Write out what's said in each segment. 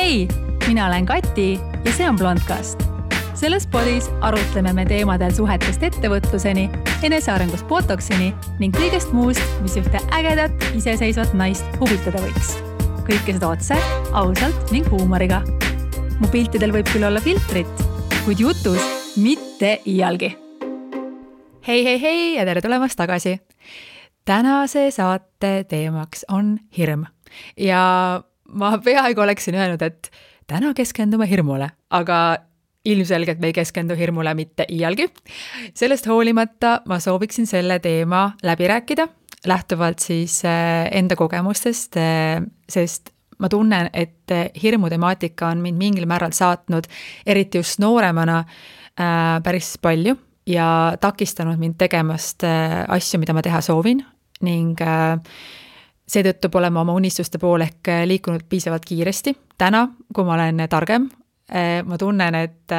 Hei, mina olen Kati ja see on Blondcast. Selles podis arutleme me teemadel suhetest ettevõtluseni, enesearengust botoksini ning kõigest muust, mis ühte ägedat, iseseisvat naist huvitada võiks. Kõike seda otse, ausalt ning huumoriga. Mu piltidel võib küll olla filtrit, kuid jutus mitte iialgi. Hei ja tere tulemast tagasi. Tänase saate teemaks on hirm. Ja ma peaaegu oleksin öelnud, et täna keskendume hirmule, aga ilmselgelt me ei keskendu hirmule mitte iialgi. Sellest hoolimata ma sooviksin selle teema läbi rääkida, lähtuvalt siis enda kogemustest, sest ma tunnen, et hirmu temaatika on mind mingil määral saatnud, eriti just nooremana, päris palju ja takistanud mind tegemast asju, mida ma teha soovin ning seetõttu pole ma oma unistuste poole ehk liikunud piisavalt kiiresti. Täna, kui ma olen targem, ma tunnen, et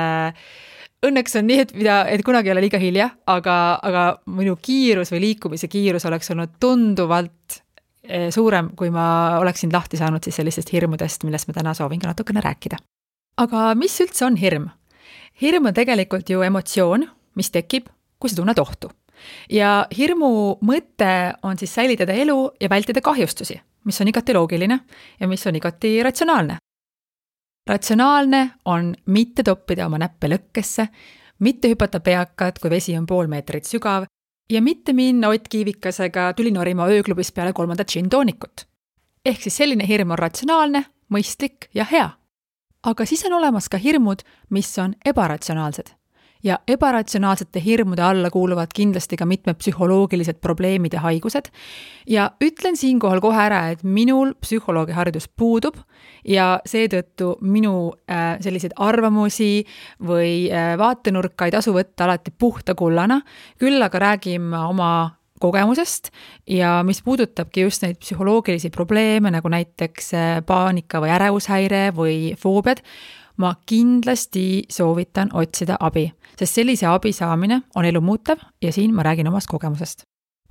õnneks on nii, et kunagi ei ole liiga hilja, aga minu kiirus või liikumise kiirus oleks olnud tunduvalt suurem, kui ma oleksin lahti saanud siis sellistest hirmudest, millest ma täna soovin ka natukene rääkida. Aga mis üldse on hirm? Hirm on tegelikult ju emotsioon, mis tekib, kui sa tunned ohtu. Ja hirmu mõte on siis säilitada elu ja vältida kahjustusi, mis on igati loogiline ja mis on igati ratsionaalne. Ratsionaalne on mitte toppida oma näppe lõkkesse, mitte hüpata peakad, kui vesi on 0,5 meetrit sügav ja mitte minna Ott Kiivikasega tulinorima ööklubis peale 3. džin-toonikut. Ehk siis selline hirm on ratsionaalne, mõistlik ja hea. Aga siis on olemas ka hirmud, mis on ebaratsionaalsed. Ja ebaratsionaalsete hirmude alla kuuluvad kindlasti ka mitmed psühholoogilised probleemid ja haigused. Ja ütlen siinkohal kohe ära, et minul psühholoogi haridus puudub ja seetõttu minu selliseid arvamusi või vaatenurka ei tasu võtta alati puhta kullana. Küll aga räägime oma kogemusest ja mis puudutabki just neid psühholoogilisi probleeme, nagu näiteks paanika või ärevushäire või foobiad, ma kindlasti soovitan otsida abi, sest sellise abi saamine on elu muutev ja siin ma räägin omast kogemusest.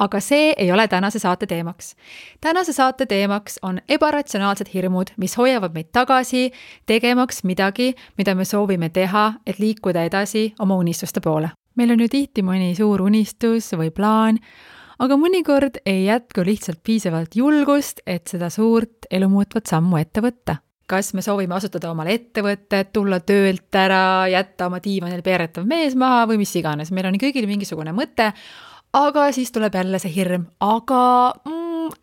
Aga see ei ole tänase saate teemaks. Tänase saate teemaks on ebaratsionaalsed hirmud, mis hoiavad meid tagasi, tegemaks midagi, mida me soovime teha, et liikuda edasi oma unistuste poole. Meil on ju tihti mõni suur unistus või plaan, aga mõnikord ei jätku lihtsalt piisavalt julgust, et seda suurt elumuutvat sammu ette võtta. Kas me soovime asutada omale ettevõtted, tulla töölt ära, jätta oma diivanil peeretav mees maha või mis iganes. Meil on kõigil mingisugune mõte, aga siis tuleb jälle see hirm. Aga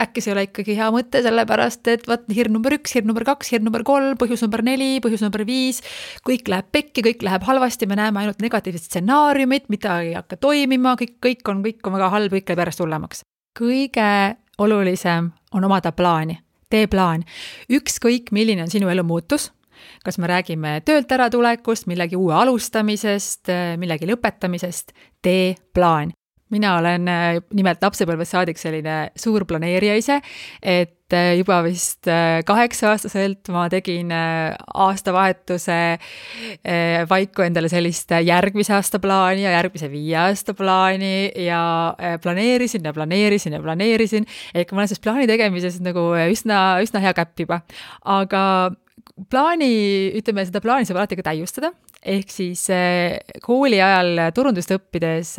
äkki see ei ole ikkagi hea mõte, sellepärast, et hirm number 1, hirm number 2, hirm number 3, põhjus number 4, põhjus number 5, kõik läheb pekki, kõik läheb halvasti, me näeme ainult negatiivsed stsenaariumid, mida ei hakka toimima, kõik on väga halb, kõik läheb järjest hullemaks. Kõige olulisem on omada plaani. Tee plaan. Ükskõik, milline on sinu elu muutus. Kas me räägime töölt äratulekust, millegi uue alustamisest, millegi lõpetamisest, tee plaan. Mina olen nimelt lapsepõlvest saadik selline suur planeerija ise, et juba vist 8-aastaselt ma tegin aastavahetuse vaiku endale sellist järgmise aasta plaani ja järgmise 5 aasta plaani ja planeerisin. Ehk ma olen siis plaani tegemises nagu üsna hea käpp juba. Aga seda plaani saab alati ka täiustada. Ehk siis kooli ajal turundust õppides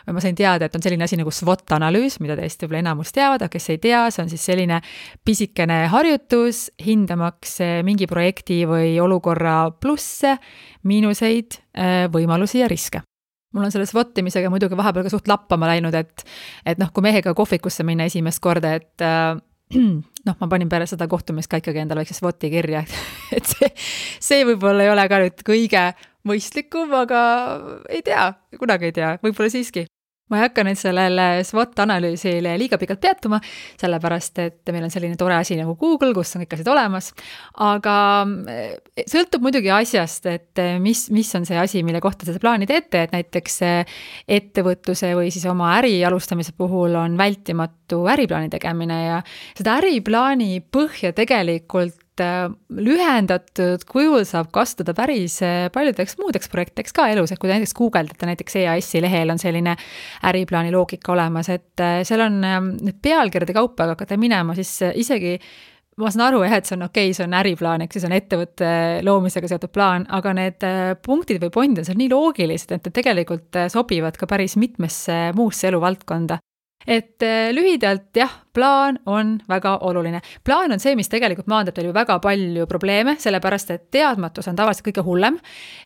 ma sain teada, et on selline asi nagu SWOT-analüüs, mida teist võib-olla enamus teavad, aga kes ei tea, see on siis selline pisikene harjutus, hindamaks mingi projekti või olukorra plusse, miinuseid, võimalusi ja riske. Mul on selle SWOT-imisega muidugi vahepeal ka suht lappama läinud, et kui mehega kohvikusse minna esimest korda, et ma panin pärast seda kohtumist ka ikkagi endale väikse SWOT-i kirja, et see võib-olla ei ole ka nüüd kõige mõistlikum, aga ei tea, kunagi ei tea, võib-olla siiski. Ma ei hakka nüüd sellele SWOT-analüüsile liiga pikalt peatuma, sellepärast, et meil on selline tore asi nagu Google, kus on kõik asjad olemas, aga sõltub muidugi asjast, et mis on see asi, mille kohta seda plaani teete, et näiteks ettevõtluse või siis oma äri alustamise puhul on vältimatu äriplaani tegemine ja seda äriplaani põhja tegelikult lühendatud kujul saab kasutada päris paljudeks muudeks projektideks ka elus, et kui näiteks guugeldate, näiteks EAS-i lehel on selline äriplaani loogika olemas, et seal on need pealkirjade kaupa, aga hakkate minema, siis isegi ma saan aru, et see on okei, see on äriplaan, eks see on ettevõtte loomisega seotud plaan, aga need punktid või pointid on seal nii loogilised, et tegelikult sobivad ka päris mitmesse muusse eluvaldkonda. Et lühidalt jah, plaan on väga oluline. Plaan on see, mis tegelikult maandab teil ju väga palju probleeme, sellepärast et teadmatus on tavaliselt kõige hullem.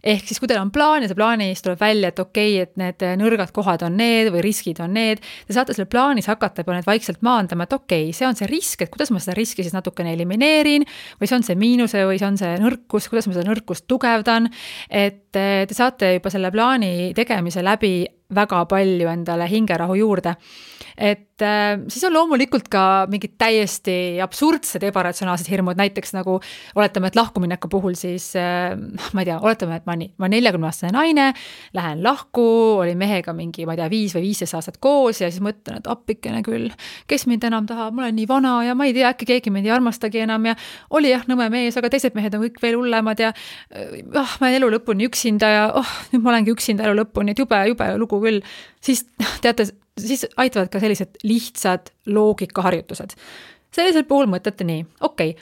Ehk siis, kui teil on plaan ja see plaanis tuleb välja, et okei, et need nõrgad kohad on need või riskid on need, te saate selle plaanis hakata juba need vaikselt maandama, et okei, see on see risk, et kuidas ma seda riski siis natukene elimineerin või see on see miinuse või see on see nõrkus, kuidas ma seda nõrkust tugevdan, et te saate juba selle plaani tegemise läbi väga palju endale hingerahu juurde. Et siis on loomulikult ka mingid täiesti absurdsed ebaratsionaalsed hirmud, näiteks nagu oletame, et lahkumineku puhul siis, ma ei tea, oletame, et ma 40-aastane naine, lähen lahku, olin mehega mingi, ma ei tea, 5 või 15 aastat koos ja siis mõtlen, et appikene küll, kes mind enam tahab, ma olen nii vana ja ma ei tea, äkki keegi mind ei armastagi enam ja oli jah, nõme mees, aga teised mehed on kõik veel hullemad ja ma olen elu lõpuni üksinda ja nüüd ma olengi üksinda elu lõpuni, et jube lugu küll. Siis teate, siis aitavad ka sellised lihtsad loogikaharjutused. Sellisel puhul mõtlete nii, okei,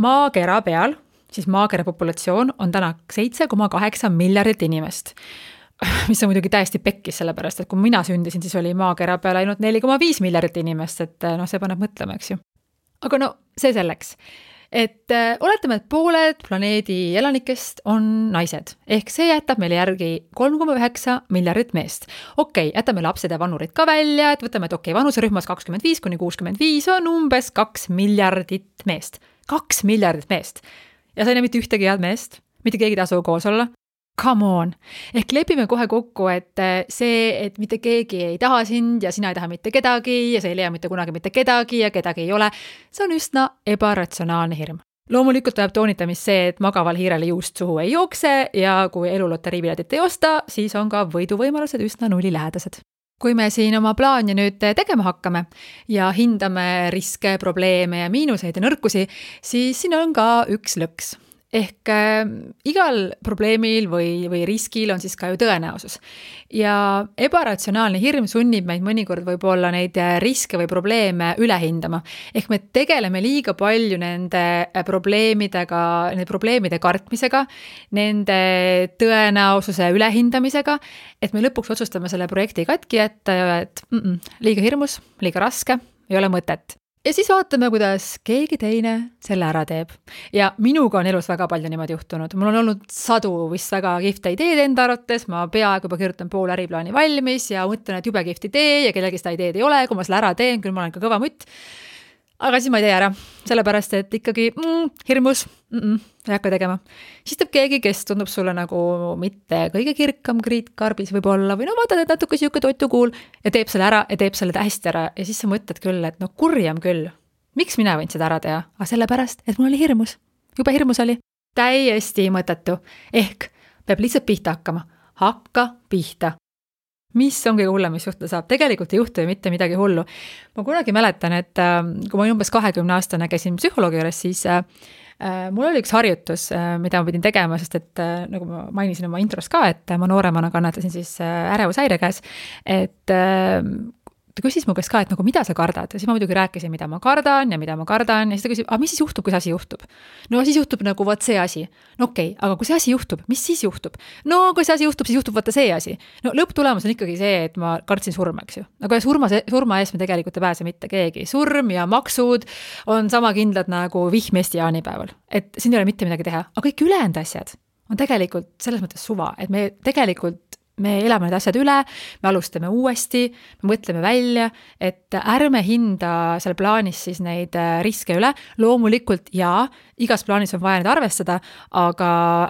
maakera peal, siis maakera populatsioon on täna 7,8 miljardit inimest, mis on muidugi täiesti pekkis, sellepärast, et kui mina sündisin, siis oli maakera peal ainult 4,5 miljardit inimest, et see paneb mõtlema, eks ju. Aga no, see selleks. Et oletame, et pooled planeedi elanikest on naised, ehk see jätab meile järgi 3,9 miljardit meest. Okei, jätame lapsed ja vanurid ka välja, et võtame, et okei, vanuserühmas 25–65 on umbes 2 miljardit meest. 2 miljardit meest. Ja sa ei näe mitte ühtegi head meest, mitte keegi tasu koos olla. Come on. Ehk lepime kohe kokku, et see, et mitte keegi ei taha sind ja sina ei taha mitte kedagi ja sa ei leia mitte kunagi mitte kedagi ja kedagi ei ole, see on üsna ebaratsionaalne hirm. Loomulikult tuleb toonitamist see, et magaval hiirele juust suhu ei jookse ja kui eluloteriipiletit ei osta, siis on ka võiduvõimalused üsna nullilähedased. Kui me siin oma plaani nüüd tegema hakkame ja hindame riske, probleeme ja miinuseid ja nõrkusi, siis siin on ka üks lõks. Ehk igal probleemil või riskil on siis ka ju tõenäosus. Ja ebaratsionaalne hirm sunnib meid mõnikord võib-olla neid riske või probleeme üle hindama. Ehk me tegeleme liiga palju nende probleemide kartmisega, nende tõenäosuse ülehindamisega, et me lõpuks otsustame selle projekti katki jätta ja et liiga hirmus, liiga raske, ei ole mõtet. Ja siis vaatame, kuidas keegi teine selle ära teeb. Ja minuga on elus väga palju niimoodi juhtunud. Mul on olnud sadu vist väga kihvte ideed enda arvates, ma peaaegu juba kirjutan pool äriplaani valmis ja mõtlen, et jube kihvt idee ja kellelgi seda ideed ei ole, kui ma selle ära teen, küll ma olen ka kõva mutt. Aga siis ma ei tee ära, sellepärast, et ikkagi hirmus, ei hakka tegema. Siis teeb keegi, kes tundub sulle nagu mitte kõige kirkam kriitkarbis võib-olla või no vaatad, et natuke siuke toitukuul ja teeb selle ära ja teeb selle hästi ära ja siis sa mõtled küll, et no kurjam küll. Miks mina võin seda ära teha? Aga sellepärast, et mul oli hirmus. Jube hirmus oli. Täiesti mõttetu. Ehk peab lihtsalt pihta hakkama. Hakka pihta. Mis on kõige hullem, mis juhtuda saab? Tegelikult ei juhtu ju mitte midagi hullu. Ma kunagi mäletan, et kui ma umbes 20-aastane käisin psühholoogi juures, siis mul oli üks harjutus, mida ma pidin tegema, sest et nagu ma mainisin oma intros ka, et ma nooremana kannatasin siis ärevushäire käes, et ta küsis mu käest ka, et nagu mida sa kardad ja siis ma muidugi rääkisin, mida ma kardan ja siis ta küsib, aga mis siis juhtub, kui see asi juhtub? No siis juhtub nagu võt see asi. No okei, aga kui see asi juhtub, mis siis juhtub? No kui see asi juhtub, siis juhtub võtta see asi. No lõpptulemus on ikkagi see, et ma kartsin surma, eks ju. Aga surma eest me tegelikult ei pääse mitte keegi. Surm ja maksud on sama kindlad nagu vihm Eesti jaanipäeval. Et siin ei ole mitte midagi teha. Aga kõik ülejäänud asjad on tegelikult selles mõttes suva, et me elame need asjad üle, me alustame uuesti, me mõtleme välja, et ärme hinda seal plaanis siis neid riske üle. Loomulikult igas plaanis on vaja neid arvestada, aga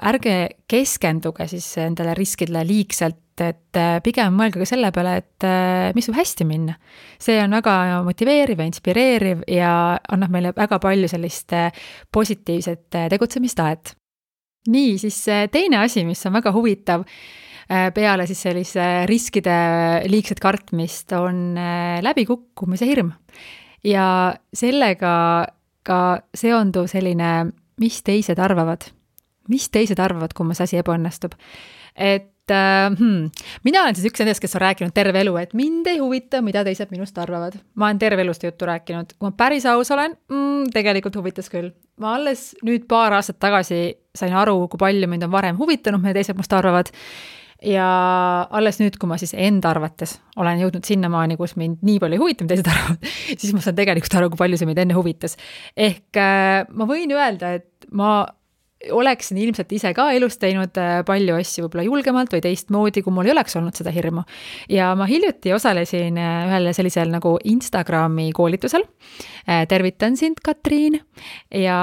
ärge keskenduge siis endale riskidele liigselt, et pigem mõelge ka selle peale, et mis võib hästi minna. See on väga motiveeriv ja inspireeriv ja annab meile väga palju sellist positiivset tegutsemistaet. Nii, siis teine asi, mis on väga huvitav, peale siis sellise riskide liigset kartmist on läbikukkumise hirm. Ja sellega ka seonduv selline, mis teised arvavad, kui see asi ebaõnnestub. Et mina olen siis üks nendest, kes on rääkinud terve elu, et mind ei huvita, mida teised minust arvavad. Ma olen terve elust juttu rääkinud. Kui ma päris aus olen, tegelikult huvitas küll. Ma alles nüüd paar aastat tagasi sain aru, kui palju mind on varem huvitanud, mida teised must arvavad. Ja alles nüüd, kui ma siis enda arvates olen jõudnud sinnamaani, kus mind nii palju ei huvita, mida teised arvavad, siis ma saan tegelikult aru, kui palju see mind enne huvitas. Ehk ma võin öelda, et ma oleksin ilmselt ise ka elus teinud palju asju võib-olla julgemalt või teistmoodi, kui mul ei oleks olnud seda hirmu. Ja ma hiljuti osalesin ühel sellisel nagu Instagrami koolitusel. Tervitan sind, Katriin. Ja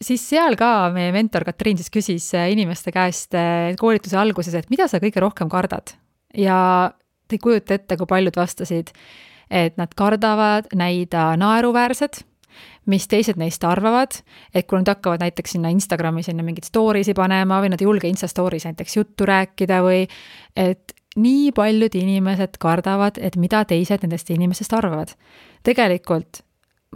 siis seal ka meie mentor Katriin siis küsis inimeste käest koolituse alguses, et mida sa kõige rohkem kardad. Ja te ei kujuta ette, kui paljud vastasid, et nad kardavad näida naeruväärsed, mis teised neist arvavad, et kui nad hakkavad näiteks sinna Instagrami sinna mingid storiesi panema või nad ei julge Insta stories näiteks juttu rääkida või et nii paljud inimesed kardavad, et mida teised nendest inimesest arvavad. Tegelikult,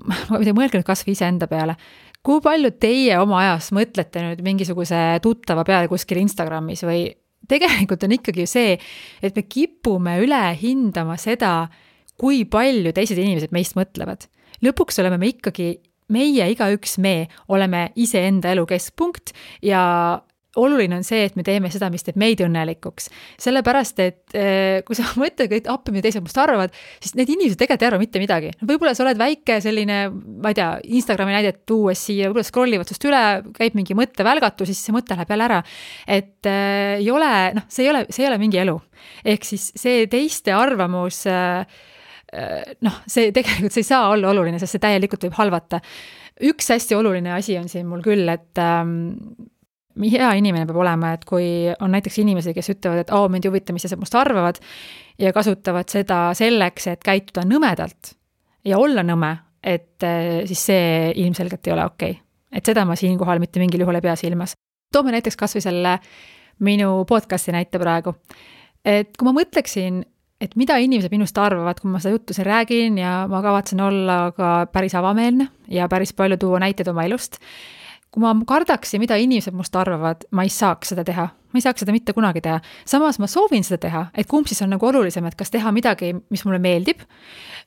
ma mõelge nüüd kas või ise enda peale, kui palju teie oma ajas mõtlete nüüd mingisuguse tuttava peale kuskil Instagramis või tegelikult on ikkagi see, et me kipume üle hindama seda, kui palju teised inimesed meist mõtlevad. Lõpuks oleme me ikkagi, meie igaüks me oleme ise enda elu keskpunkt ja oluline on see, et me teeme seda, mis teeb meid õnnelikuks. Sellepärast, et kui sa mõtled, et appi, mida teised must arvavad, siis need inimesed tegelikult ei arva mitte midagi. Võib-olla sa oled väike selline, ma ei tea, Instagrami näidet tuues siia, võib-olla scrollivad sust üle, käib mingi mõttevälgatus, siis see mõte läheb jälle ära. Et ei ole, see ei ole mingi elu. Ehk siis see teiste arvamus see tegelikult see ei saa olla oluline, sest see täielikult võib halvata. Üks hästi oluline asi on siin mul küll, et hea inimene peab olema, et kui on näiteks inimesi, kes ütlevad, et mind ei huvita, mis must arvavad ja kasutavad seda selleks, et käituda nõmedalt ja olla nõme, et siis see ilmselgelt ei ole okei. Et seda ma siinkohal mitte mingil juhul ei pea silmas. Toome näiteks kas või selle minu podcasti näite praegu. Et kui ma mõtleksin, et mida inimesed minust arvavad, kui ma seda juttu siin räägin ja ma kavatsen olla ka päris avameelne ja päris palju tuua näiteid oma elust. Kui ma kardaksin, mida inimesed must arvavad, ma ei saaks seda teha. Ma ei saaks seda mitte kunagi teha. Samas ma soovin seda teha, et kumb siis on nagu olulisem, et kas teha midagi, mis mulle meeldib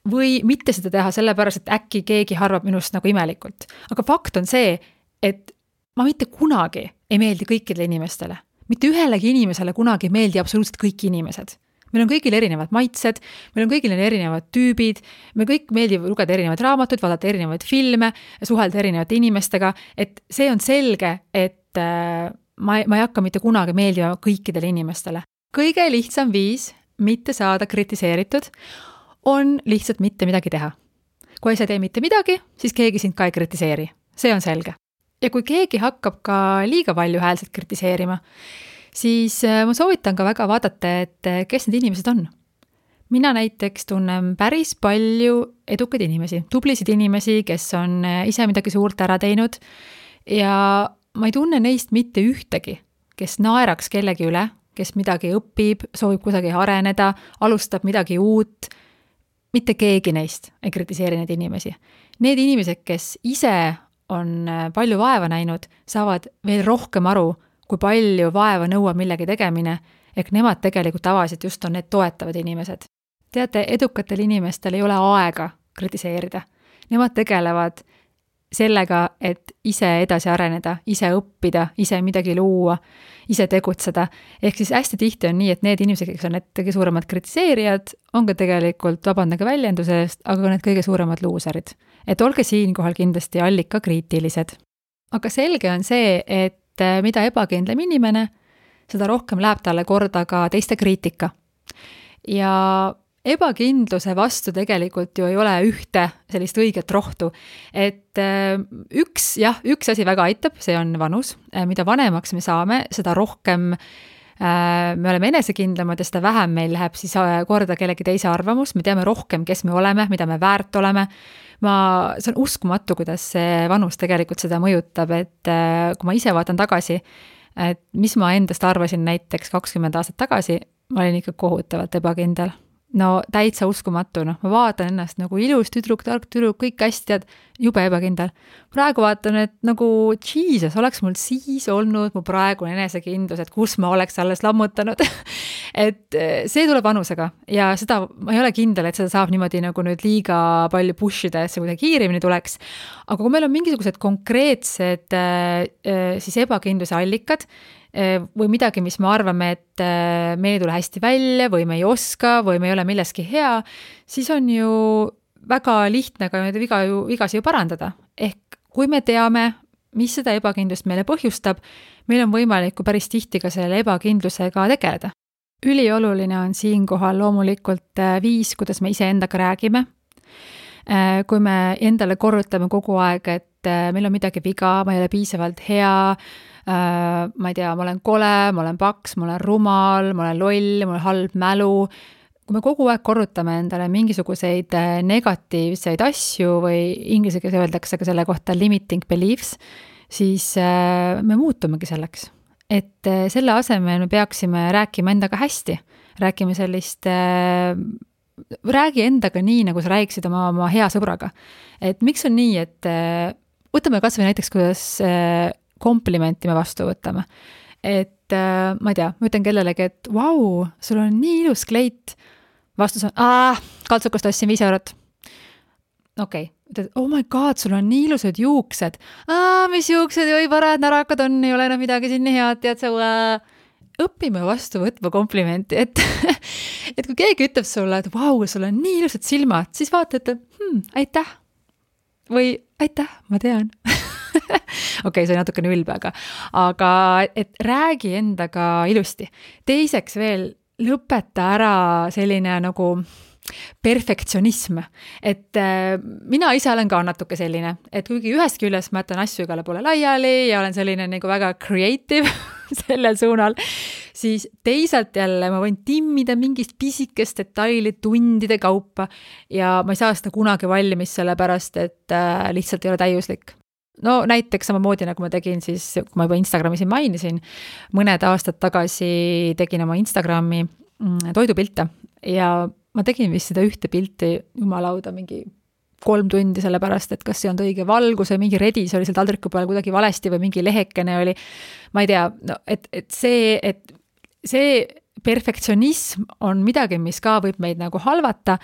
või mitte seda teha sellepärast, et äkki keegi arvab minust nagu imelikult. Aga fakt on see, et ma mitte kunagi ei meeldi kõikidele inimestele. Mitte ühelegi inimesele kunagi ei meeldi absoluutselt kõik inimesed. Meil on kõigil erinevad maitsed, meil on kõigil erinevad tüübid, me kõik meeldib lugeda erinevaid raamatuid, vaadata erinevaid filme, suhelda erinevate inimestega, et see on selge, et ma ei hakka mitte kunagi meeldima kõikidele inimestele. Kõige lihtsam viis mitte saada kritiseeritud on lihtsalt mitte midagi teha. Kui sa tee mitte midagi, siis keegi sind ka ei kritiseeri. See on selge. Ja kui keegi hakkab ka liiga palju häälselt kritiseerima, siis ma soovitan ka väga vaadata, et kes need inimesed on. Mina näiteks tunnen päris palju edukaid inimesi, tublisid inimesi, kes on ise midagi suurt ära teinud ja ma ei tunne neist mitte ühtegi, kes naeraks kellegi üle, kes midagi õpib, soovib kusagil areneda, alustab midagi uut. Mitte keegi neist ei kritiseeri neid inimesi. Need inimesed, kes ise on palju vaeva näinud, saavad veel rohkem aru, kui palju vaeva nõuab millegi tegemine, ehk nemad tegelikult tavaliselt just on need toetavad inimesed. Teate, edukatel inimestel ei ole aega kritiseerida. Nemad tegelevad sellega, et ise edasi areneda, ise õppida, ise midagi luua, ise tegutseda. Ehk siis hästi tihti on nii, et need inimesed, kes on need kõige suuremad kritiseerijad, on ka tegelikult, vabandage väljenduse eest, aga need kõige suuremad luuserid. Et olge siinkohal kindlasti allika kriitilised. Aga selge on see, et mida ebakindlam inimene, seda rohkem läheb talle korda ka teiste kriitika. Ja ebakindluse vastu tegelikult ju ei ole ühte sellist õiget rohtu. Et üks asi väga aitab, see on vanus. Mida vanemaks me saame, seda rohkem me oleme enesekindlamad ja seda vähem meil läheb siis korda kellegi teise arvamus. Me teame rohkem, kes me oleme, mida me väärt oleme. See on uskumatu, kuidas see vanus tegelikult seda mõjutab, et kui ma ise vaatan tagasi, et mis ma endast arvasin näiteks 20 aastat tagasi, ma olin ikka kohutavalt ebakindel. no täitsa uskumatu, noh, ma vaatan ennast nagu ilus tüdruk, tark tüdruk, kõik hästi, tead, jube ebakindel. Praegu vaatan, et nagu Jesus, oleks mul siis olnud mu praegune enesekindlus, et kus ma oleks alles lammutanud. Et see tuleb vanusega ja seda ma ei ole kindel, et seda saab niimoodi nagu nüüd liiga palju pushida, et see kuidagi kiiremini tuleks. Aga kui meil on mingisugused konkreetsed siis ebakindluse allikad, või midagi, mis me arvame, et me ei tule hästi välja või me ei oska või me ei ole milleski hea, siis on ju väga lihtne ka neid vigasi ju parandada. Ehk kui me teame, mis seda ebakindlust meile põhjustab, meil on võimalik päris tihti ka selle ebakindlusega tegeleda. Ülioluline on siinkohal loomulikult viis, kuidas me iseendaga räägime. Kui me endale korrutame kogu aeg, et meil on midagi viga, ma ei ole piisavalt hea, ma ei tea, ma olen kole, ma olen paks, ma olen rumal, ma olen loll, mul on halb mälu. Kui me kogu aeg korrutame endale mingisuguseid negatiivseid asju või inglise keeles öeldakse ka selle kohta limiting beliefs, siis me muutumegi selleks. Et selle asemel me peaksime rääkima endaga hästi, räägi endaga nii, nagu sa räägiksid oma hea sõbraga. Et miks on nii, et võtame kas või näiteks, kuidas komplimenti me vastu võtame. Et ma ei tea, ma ütlen kellelegi, et vau, sul on nii ilus kleit. Vastus on, kaltsukust ostsin 5 eurot. Okei, ütled, oh my god, sul on nii ilusad juuksed. Mis juuksed, oi parad närakad on, ei ole enam midagi siin nii head, tead sa õpime vastu võtma komplimenti, et kui keegi ütleb sulle, et vau, sul on nii ilusad silmad, siis vaata, et aitäh. Või aitäh, ma tean. Okei, see on natukene ülbe, aga et räägi endaga ilusti. Teiseks veel, lõpeta ära selline nagu perfektsionism. Et mina ise olen ka natuke selline, et kuigi ühest küljest ma jätan asju igale poole laiali ja olen selline nagu väga creative sellel suunal, siis teisalt jälle ma võin timmida mingist pisikest detaili tundide kaupa ja ma ei saa seda kunagi valmis sellepärast, et lihtsalt ei ole täiuslik. No näiteks samamoodi, nagu ma tegin siis, kui ma juba Instagrami siin mainisin, mõned aastad tagasi tegin oma Instagrami toidupilte ja ma tegin vist seda ühte pilti jumalauda mingi 3 tundi sellepärast, et kas see on õige valgus või mingi redis oli seal taldriku peal kuidagi valesti või mingi lehekene oli, ma ei tea, no, et see perfektsionism on midagi, mis ka võib meid nagu halvata,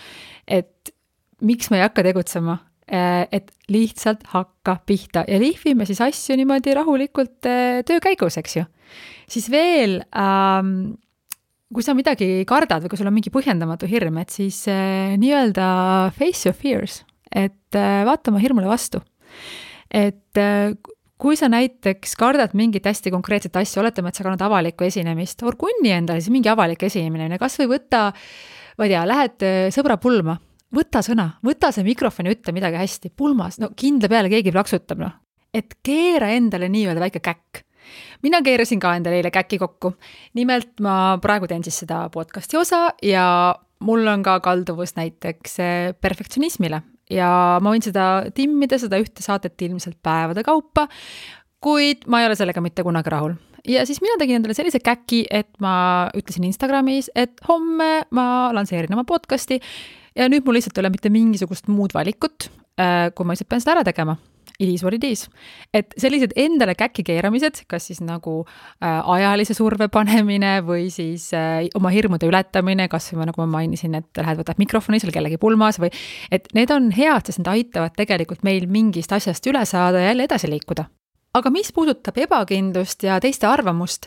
et miks me ei hakka tegutsema, et lihtsalt hakka pihta ja lihvime siis asju niimoodi rahulikult töö käigus, eks ju. Siis veel, kui sa midagi kardad või kui sul on mingi põhjendamatu hirm, et siis nii-öelda face your fears, et vaata oma hirmule vastu. Et kui sa näiteks kardad mingit hästi konkreetset asja, oletame, et sa kannad avalikku esinemist, orgunni endale siis mingi avalik esinemine, kas või võtta, ma ei tea, lähed sõbra pulma, võta sõna, võta see mikrofon ja ütle midagi hästi, pulmas, no kindla peale keegi plaksutab, noh. Et keera endale nii-öelda väike käkk. Mina keerasin ka endale eile käki kokku. Nimelt ma praegu teen siis seda podcasti osa ja mul on ka kalduvus näiteks perfektsionismile ja ma võin seda timmida, seda ühte saadet ilmselt päevade kaupa, kuid ma ei ole sellega mitte kunagi rahul. Ja siis mina tegin endale sellise käki, et ma ütlesin Instagramis, et homme ma lanseerin oma podcasti ja nüüd mul lihtsalt ei ole mitte mingisugust muud valikut, kui ma lihtsalt pean seda ära tegema. It is what it is. Et sellised endale käki keeramised, kas siis nagu ajalise surve panemine või siis oma hirmude ületamine, kas või nagu ma mainisin, et lähed võtad mikrofoni seal kellegi pulmas või et need on head, sest need aitavad tegelikult meil mingist asjast üle saada ja jälle edasi liikuda. Aga mis puudutab ebakindlust ja teiste arvamust,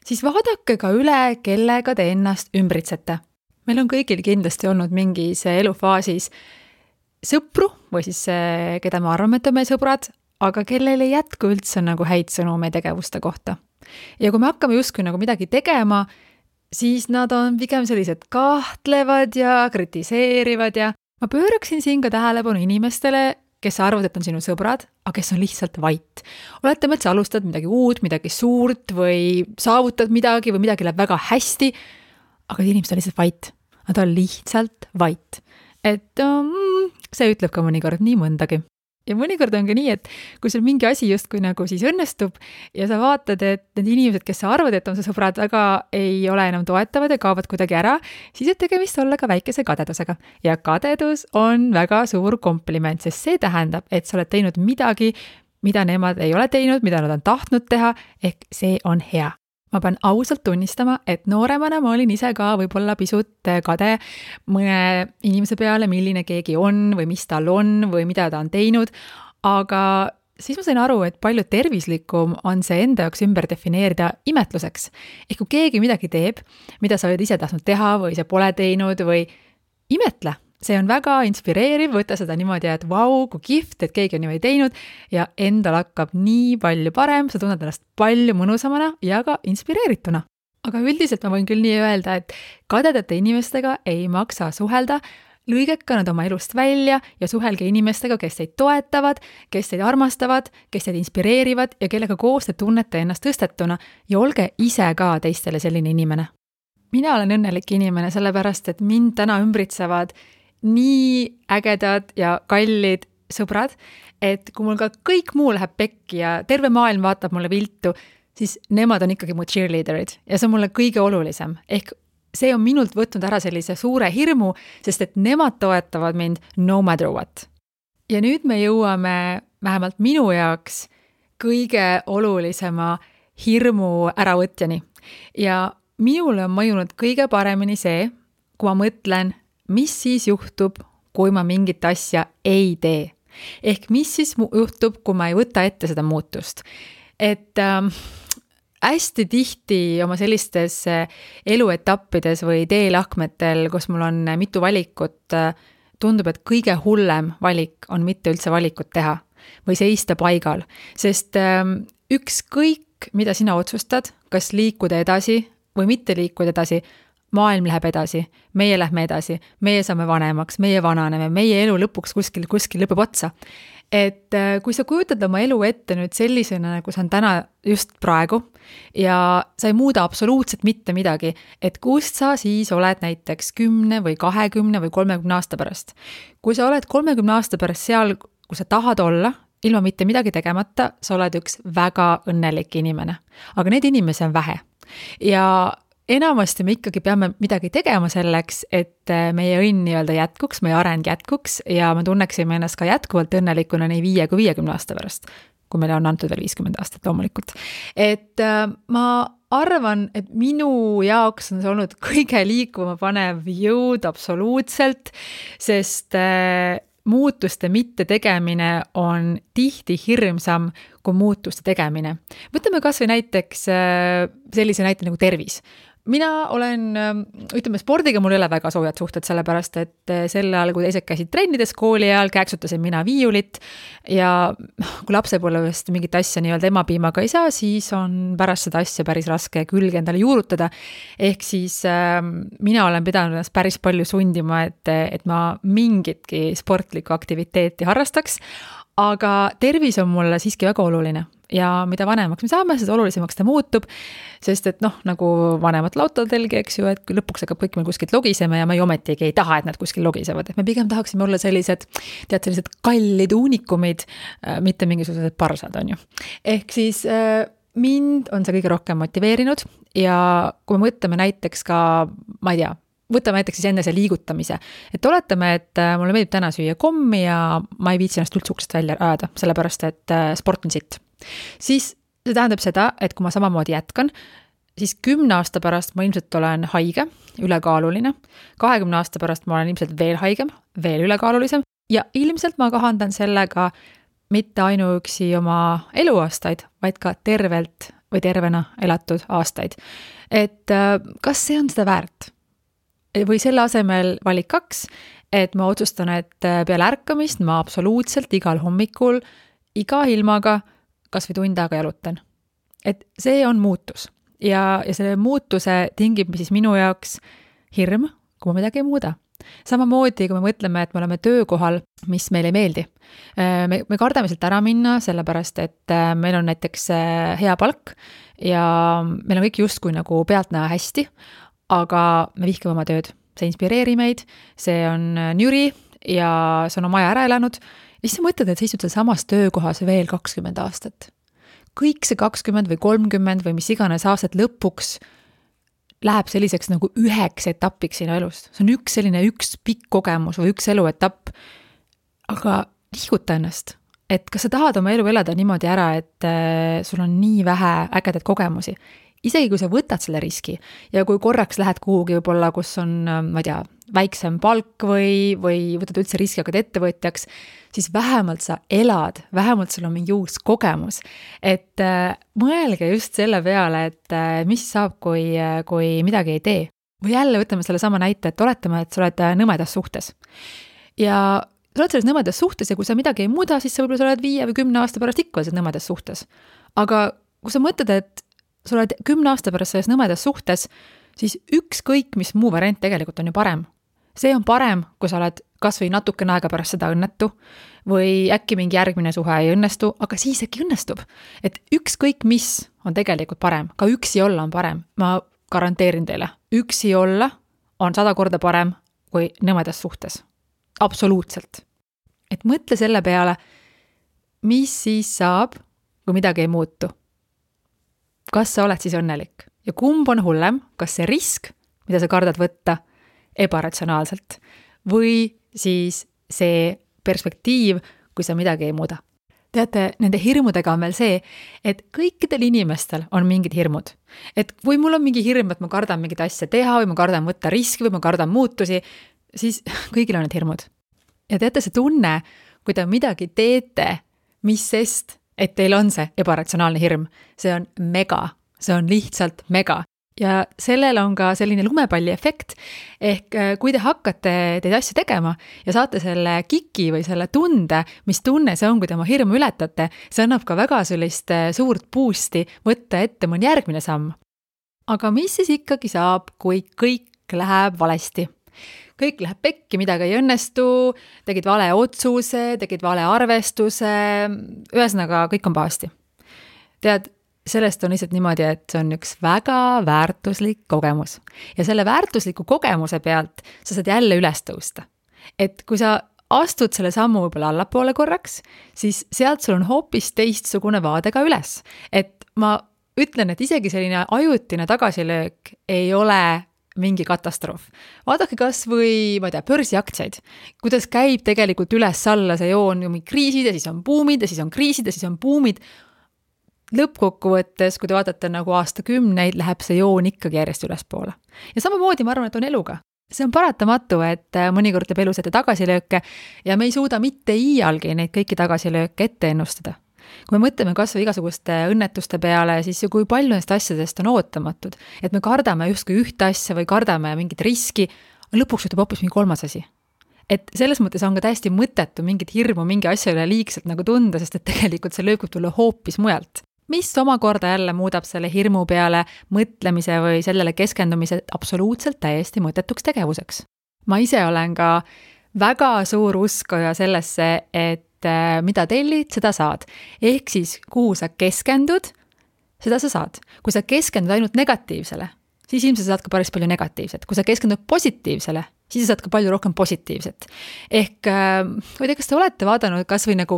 siis vaadake ka üle, kellega te ennast ümbritsete. Meil on kõigil kindlasti olnud mingis elufaasis sõpru või siis keda me arvame, et on meie sõbrad, aga kellel ei jätku üldse nagu häid sõnu meie tegevuste kohta. Ja kui me hakkame justkui nagu midagi tegema, siis nad on pigem sellised kahtlevad ja kritiseerivad ja ma pööraksin siin ka tähelepanu inimestele, kes arvavad, et on sinu sõbrad, aga kes on lihtsalt vait. Oletame, et sa alustad midagi uut, midagi suurt või saavutad midagi või midagi läheb väga hästi, aga inimesed on lihtsalt vait. Nad on lihtsalt vait. Et see ütleb ka mõnikord nii mõndagi. Ja mõnikord on ka nii, et kui sul mingi asi justkui nagu siis õnnestub ja sa vaatad, et need inimesed, kes sa arvad, et on su sõbrad, väga ei ole enam toetavad ja kaovad kuidagi ära, siis võib tegemist olla ka väikese kadedusega. Ja kadedus on väga suur kompliment, sest see tähendab, et sa oled teinud midagi, mida nemad ei ole teinud, mida nad on tahtnud teha, ehk see on hea. Ma pean ausalt tunnistama, et nooremana ma olin ise ka võib-olla pisut kade mõne inimese peale, milline keegi on või mis tal on või mida ta on teinud, aga siis ma sain aru, et palju tervislikum on see enda jaoks ümber defineerida imetluseks. Ehk kui keegi midagi teeb, mida sa oled ise tahtnud teha või sa pole teinud või imetle. See on väga inspireeriv, võtta seda niimoodi, et vau, kui kihvt, et keegi on niimoodi teinud ja endal hakkab nii palju parem, sa tunned ennast palju mõnusamana ja ka inspireerituna. Aga üldiselt ma võin küll nii öelda, et kadedate inimestega ei maksa suhelda, lõigeka nad oma elust välja ja suhelge inimestega, kes teid toetavad, kes teid armastavad, kes teid inspireerivad ja kellega koos te tunnete ennast tõstetuna ja olge ise ka teistele selline inimene. Mina olen õnnelik inimene sellepärast, et mind täna ümbritsevad nii ägedad ja kallid sõbrad, et kui mul ka kõik muu läheb pekki ja terve maailm vaatab mulle viltu, siis nemad on ikkagi mu cheerleaderid ja see on mulle kõige olulisem. Ehk see on minult võtnud ära sellise suure hirmu, sest et nemad toetavad mind no matter what. Ja nüüd me jõuame vähemalt minu jaoks kõige olulisema hirmu äravõtjani. Ja minule on mõjunud kõige paremini see, kui ma mõtlen, mis siis juhtub, kui ma mingit asja ei tee. Ehk mis siis juhtub, kui ma ei võta ette seda muutust. Et hästi tihti oma sellistes eluetappides või teelahkmetel, kus mul on mitu valikut, tundub, et kõige hullem valik on mitte üldse valikut teha või seista paigal. Sest ükskõik, mida sina otsustad, kas liikuda edasi või mitte liikuda edasi, maailm läheb edasi, meie lähme edasi, meie saame vanemaks, meie vananeme, meie elu lõpuks kuskil lõpeb otsa. Et kui sa kujutad oma elu ette nüüd sellisena, nagu see on täna just praegu ja sa ei muuda absoluutselt mitte midagi, et kust sa siis oled näiteks 10 või 20 või 30 aasta pärast. Kui sa oled 30 aasta pärast seal, kus sa tahad olla, ilma mitte midagi tegemata, sa oled üks väga õnnelik inimene. Aga need inimesi on vähe. Ja enamasti me ikkagi peame midagi tegema selleks, et meie õnn nii-öelda jätkuks, meie areng jätkuks ja me tunneksime ennast ka jätkuvalt õnnelikuna nii 5 kui 50 aasta pärast, kui meile on antud veel 50 aastat loomulikult. Et ma arvan, et minu jaoks on see olnud kõige liikuma panev jõud absoluutselt, sest muutuste mitte tegemine on tihti hirmsam kui muutuste tegemine. Võtame kas või näiteks sellise näite nagu tervis. Mina olen, ütleme, spordiga mul ei ole väga soojad suhted, sellepärast, et sel ajal, kui teised käisid trennides kooli ajal, käeksutasin mina viiulit ja kui lapsepõlvest mingit asja nii-öelda emapiimaga ei saa, siis on pärast seda asja päris raske külge endale juurutada. Ehk siis mina olen pidanud ennast päris palju sundima, et ma mingitki sportlikku aktiviteeti harrastaks, aga tervis on mulle siiski väga oluline. Ja mida vanemaks me saame, seda olulisemaks ta muutub, sest et nagu vanemat lautodelgi, eks ju, et lõpuks hakkab kõik meil kuskilt logisema ja me ometigi ei taha, et nad kuskil logisevad. Et me pigem tahaksime olla sellised kallid unikumid, mitte mingisugused parsad, on ju. Ehk siis mind on see kõige rohkem motiveerinud ja kui me mõtleme näiteks ka, ma ei tea, võtame näiteks siis enne see liigutamise. Et oletame, et mulle meeldib täna süüa kommi ja ma ei viitsi ennast üldse uksest välja ajada, sellepärast et sport on sitt. Siis see tähendab seda, et kui ma samamoodi jätkan, siis 10 aasta pärast ma ilmselt olen haige, ülekaaluline, 20 aasta pärast ma olen ilmselt veel haigem, veel ülekaalulisem ja ilmselt ma kahandan sellega mitte ainuüksi oma eluaastaid, vaid ka tervelt või tervena elatud aastaid. Et kas see on seda väärt? Või selle asemel valik 2, et ma otsustan, et peale ärkamist ma absoluutselt igal hommikul, iga ilmaga, kas või tund aega jalutan. Et see on muutus. Ja selle muutuse tingib siis minu jaoks hirm, kui ma midagi ei muuda. Samamoodi, kui me mõtleme, et me oleme töökohal, mis meile ei meeldi. Me kardame sealt ära minna, sellepärast, et meil on näiteks hea palk ja meil on kõik justkui nagu pealtnäha hästi, aga me vihkame oma tööd. See inspireeri meid, see on nüri ja sa on oma aja ära elanud ja siis sa mõtled, et sa istud seal samas töökohas veel 20 aastat. Kõik see 20 või 30 või mis iganes aastat lõpuks läheb selliseks nagu üheks etapiks sinu elust. See on üks pikk kogemus või üks eluetapp. Aga liiguta ennast, et kas sa tahad oma elu elada niimoodi ära, et sul on nii vähe ägedaid kogemusi. Isegi kui sa võtad selle riski ja kui korraks lähed kuhugi võib-olla, kus on, ma ei tea, väiksem palk või võtad üldse riski, hakkad ettevõtjaks, siis vähemalt sa elad, vähemalt sul on mingi uus kogemus. Et mõelge just selle peale, et mis saab, kui midagi ei tee. Või jälle võtame selle sama näite, et oletame, et sa oled nõmedas suhtes. Ja sa oled selles nõmedas suhtes ja kui sa midagi ei muuda, siis sa võib-olla sa oled 5 või 10 aasta pärast ikka selles nõmedas suhtes. Aga kui sa mõtled, et sa oled 10 aasta pärast selles nõmedas suhtes, siis ükskõik, mis muu variant tegelikult on ju parem. See on parem, kui sa oled kas või natukene aega pärast seda õnnetu või äkki mingi järgmine suhe ei õnnestu, aga siis äkki õnnestub. Et ükskõik, mis on tegelikult parem, ka üksi olla on parem. Ma garanteerin teile, üksi olla on 100 korda parem kui nõmedas suhtes. Absoluutselt. Et mõtle selle peale, mis siis saab, kui midagi ei muutu. Kas sa oled siis õnnelik? Ja kumb on hullem, kas see risk, mida sa kardad võtta ebaratsionaalselt, või siis see perspektiiv, kui sa midagi ei muuda. Teate, nende hirmudega on veel see, et kõikidel inimestel on mingid hirmud. Et kui mul on mingi hirm, et ma kardan mingit asja teha või ma kardan võtta riski või ma kardan muutusi, siis kõigil on need hirmud. Ja teate, see tunne, kui te midagi teete, mis sest, et teil on see ebaratsionaalne hirm, see on mega, see on lihtsalt mega. Ja sellel on ka selline lumepalli efekt, ehk kui te hakkate teid asju tegema ja saate selle kiki või selle tunde, mis tunne see on, kui te oma hirmu ületate, see annab ka väga sellist suurt boosti võtta ette mõni järgmine samm. Aga mis siis ikkagi saab, kui kõik läheb valesti? Kõik läheb pekki, midagi ei õnnestu, tegid vale otsuse, tegid vale arvestuse, ühesõnaga kõik on pahasti. Tead, sellest on lihtsalt niimoodi, et see on üks väga väärtuslik kogemus. Ja selle väärtusliku kogemuse pealt sa saad jälle üles tõusta. Et kui sa astud selle sammu võib-olla allapoole korraks, siis sealt sul on hoopis teistsugune vaade ka üles. Et ma ütlen, et isegi selline ajutine tagasilöök ei ole mingi katastroof. Vaadake kas või, ma ei tea, börsiaktsiaid. Kuidas käib tegelikult üles-alla see joon, kriisid ja siis on buumid ja siis on kriisid ja siis on buumid. Lõppkokkuvõttes, kui te vaatate nagu aastakümneid, läheb see joon ikkagi järjest ülespoole. Ja samamoodi ma arvan, et on eluga. See on paratamatu, et mõnikord teeb elus ette tagasilööke ja me ei suuda mitte iialgi neid kõiki tagasilööke ette ennustada. Kui me mõtleme kas või igasuguste õnnetuste peale, siis ju kui palju neist asjadest on ootamatud, et me kardame justkui ühte asja või kardame mingit riski, lõpuks juhtub hoopis mingi kolmas asi. Et selles mõttes on ka täiesti mõttetu mingit hirmu mingi asja üle liigselt nagu tunda, sest et tegelikult see lööb tulla hoopis mujalt. Mis omakorda jälle muudab selle hirmu peale mõtlemise või sellele keskendumise absoluutselt täiesti mõttetuks tegevuseks. Ma ise olen ka väga suur uskoja sellesse, et mida tellid, seda saad. Ehk siis, kuhu sa keskendud, seda sa saad. Kui sa keskendud ainult negatiivsele, siis ilmselt saad ka päris palju negatiivset. Kui sa keskendud positiivsele, siis saad ka palju rohkem positiivset. Ehk, või te, kas te olete vaadanud kas või nagu,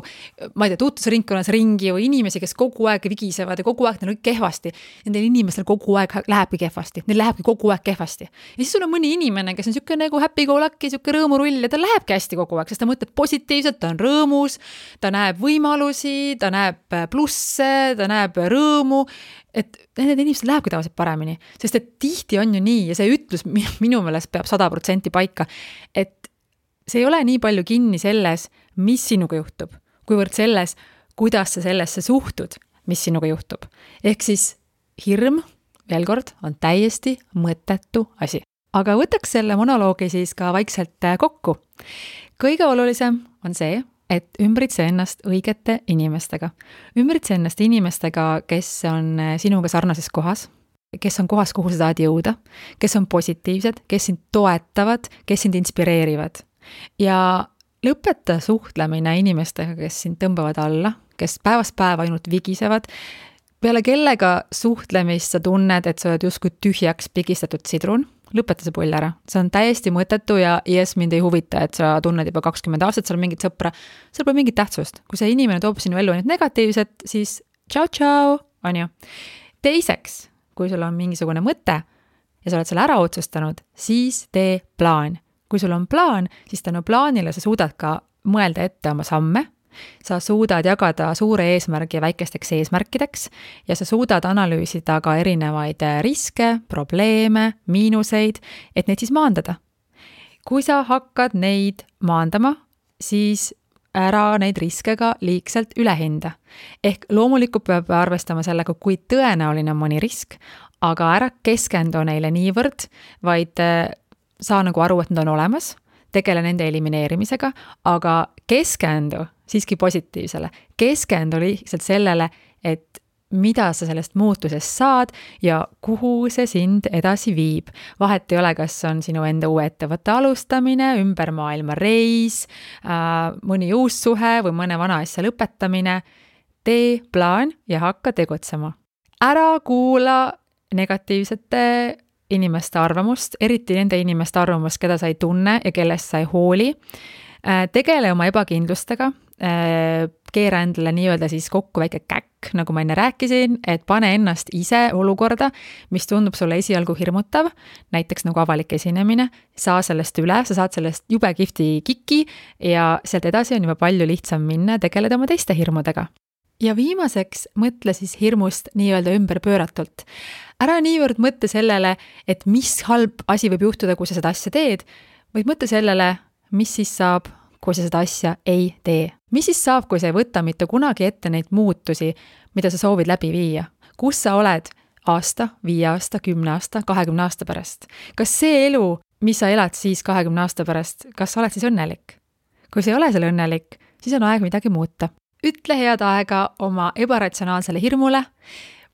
ma ei tea, tuutusringkonnas ringi või inimesi, kes kogu aeg vigisevad ja kogu aeg neil on kehvasti. Nendel inimestel kogu aeg lähebki kehvasti. Neil lähebki kogu aeg kehvasti. Ja siis sul on mõni inimene, kes on siuke nagu happy-go-lucky, siuke rõõmurull ja ta lähebki hästi kogu aeg, sest ta mõtleb positiivselt, ta on rõõmus, ta näeb võimalusi, ta näeb plusse, ta näeb rõõmu. Et need inimesed lähebki tavaliselt paremini, sest et tihti on ju nii ja see ütlus minu meelest peab 100% paika, et see ei ole nii palju kinni selles, mis sinuga juhtub, kuivõrd selles, kuidas sa sellesse suhtud, mis sinuga juhtub. Ehk siis hirm, veel kord, on täiesti mõttetu asi. Aga võtaks selle monoloogi siis ka vaikselt kokku. Kõige olulisem on see, et ümbritse ennast õigete inimestega. Ümbritse ennast inimestega, kes on sinuga sarnases kohas, kes on kohas, kuhu sa tahad jõuda, kes on positiivsed, kes sind toetavad, kes sind inspireerivad. Ja lõpeta suhtlemine inimestega, kes sind tõmbavad alla, kes päevast päeva ainult vigisevad, peale kellega suhtlemist sa tunned, et sa oled justkui tühjaks pigistatud sidrun. lõpeta see pull ära. See on täiesti mõttetu ja mind ei huvita, et sa tunned juba 20 aastat, seal mingit sõpra, seal pole mingit tähtsust. Kui see inimene toob sinu ellu ainult negatiivset, siis tšau, on ju. Teiseks, kui sul on mingisugune mõte ja sa oled selle ära otsustanud, siis tee plaan. Kui sul on plaan, siis tänu plaanile sa suudad ka mõelda ette oma samme, sa suudad jagada suure eesmärgi väikesteks eesmärkideks ja sa suudad analüüsida ka erinevaid riske, probleeme, miinuseid, et neid siis maandada. Kui sa hakkad neid maandama, siis ära neid riske ka liigselt üle hinda. Ehk loomulikult peab arvestama sellega, kui tõenäoline on mõni risk, aga ära keskendu neile niivõrd, vaid saa nagu aru, et nad on olemas, tegele nende elimineerimisega, aga keskendu siiski positiivsele. Keskendu lihtsalt sellele, et mida sa sellest muutusest saad ja kuhu see sind edasi viib. Vahet ei ole, kas on sinu enda uue ettevõtte alustamine, ümber maailma reis, mõni uus suhe või mõne vana asja lõpetamine. Tee plaan ja hakka tegutsema. Ära kuula negatiivsete inimeste arvamust, eriti nende inimeste arvamust, keda sa ei tunne ja kellest sa ei hooli. Tegele oma ebakindlustega, keera endale nii-öelda siis kokku väike käkk, nagu ma enne rääkisin, et pane ennast ise olukorda, mis tundub sulle esialgu hirmutav, näiteks nagu avalik esinemine, saa sellest üle, sa saad sellest jube kihvti kiki ja sealt edasi on juba palju lihtsam minna, tegeleda oma teiste hirmudega. Ja viimaseks mõtle siis hirmust nii-öelda ümberpööratult. Ära niivõrd mõtle sellele, et mis halb asi võib juhtuda, kui sa seda asja teed, vaid mõtle sellele, mis siis saab, kui sa seda asja ei tee. Mis siis saab, kui sa ei võta mitte kunagi ette neid muutusi, mida sa soovid läbi viia? Kus sa oled aasta, 5 aasta, 10 aasta, 20 aasta pärast? Kas see elu, mis sa elad siis 20 aasta pärast, kas sa oled siis õnnelik? Kui sa ei ole selle õnnelik, siis on aeg midagi muuta. Ütle head aega oma ebaratsionaalsele hirmule,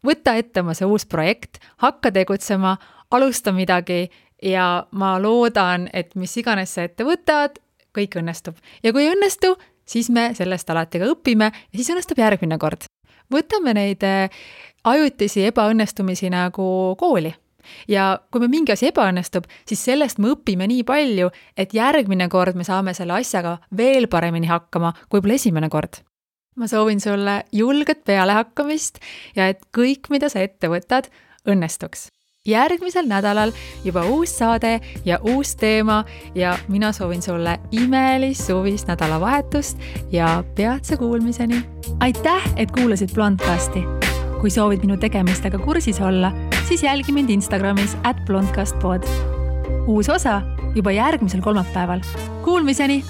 võta ette oma see uus projekt, hakka tegutsema, alusta midagi ja ma loodan, et mis iganes sa ette võtad, kõik õnnestub. Ja kui ei õnnestu, siis me sellest alati ka õpime ja siis õnnestub järgmine kord. Võtame neid ajutisi ebaõnnestumisi nagu kooli. Ja kui me mingi asi ebaõnnestub, siis sellest me õpime nii palju, et järgmine kord me saame selle asjaga veel paremini hakkama, kui pole esimene kord. Ma soovin sulle julget pealehakkamist ja et kõik, mida sa ette võtad, õnnestuks. Järgmisel nädalal juba uus saade ja uus teema ja mina soovin sulle imelist suvist nädalavahetust ja peatse kuulmiseni. Aitäh, et kuulasid Blondcasti. Kui soovid minu tegemistega kursis olla, siis jälgi mind Instagramis @blondcastpod. Uus osa juba järgmisel kolmapäeval. Kuulmiseni!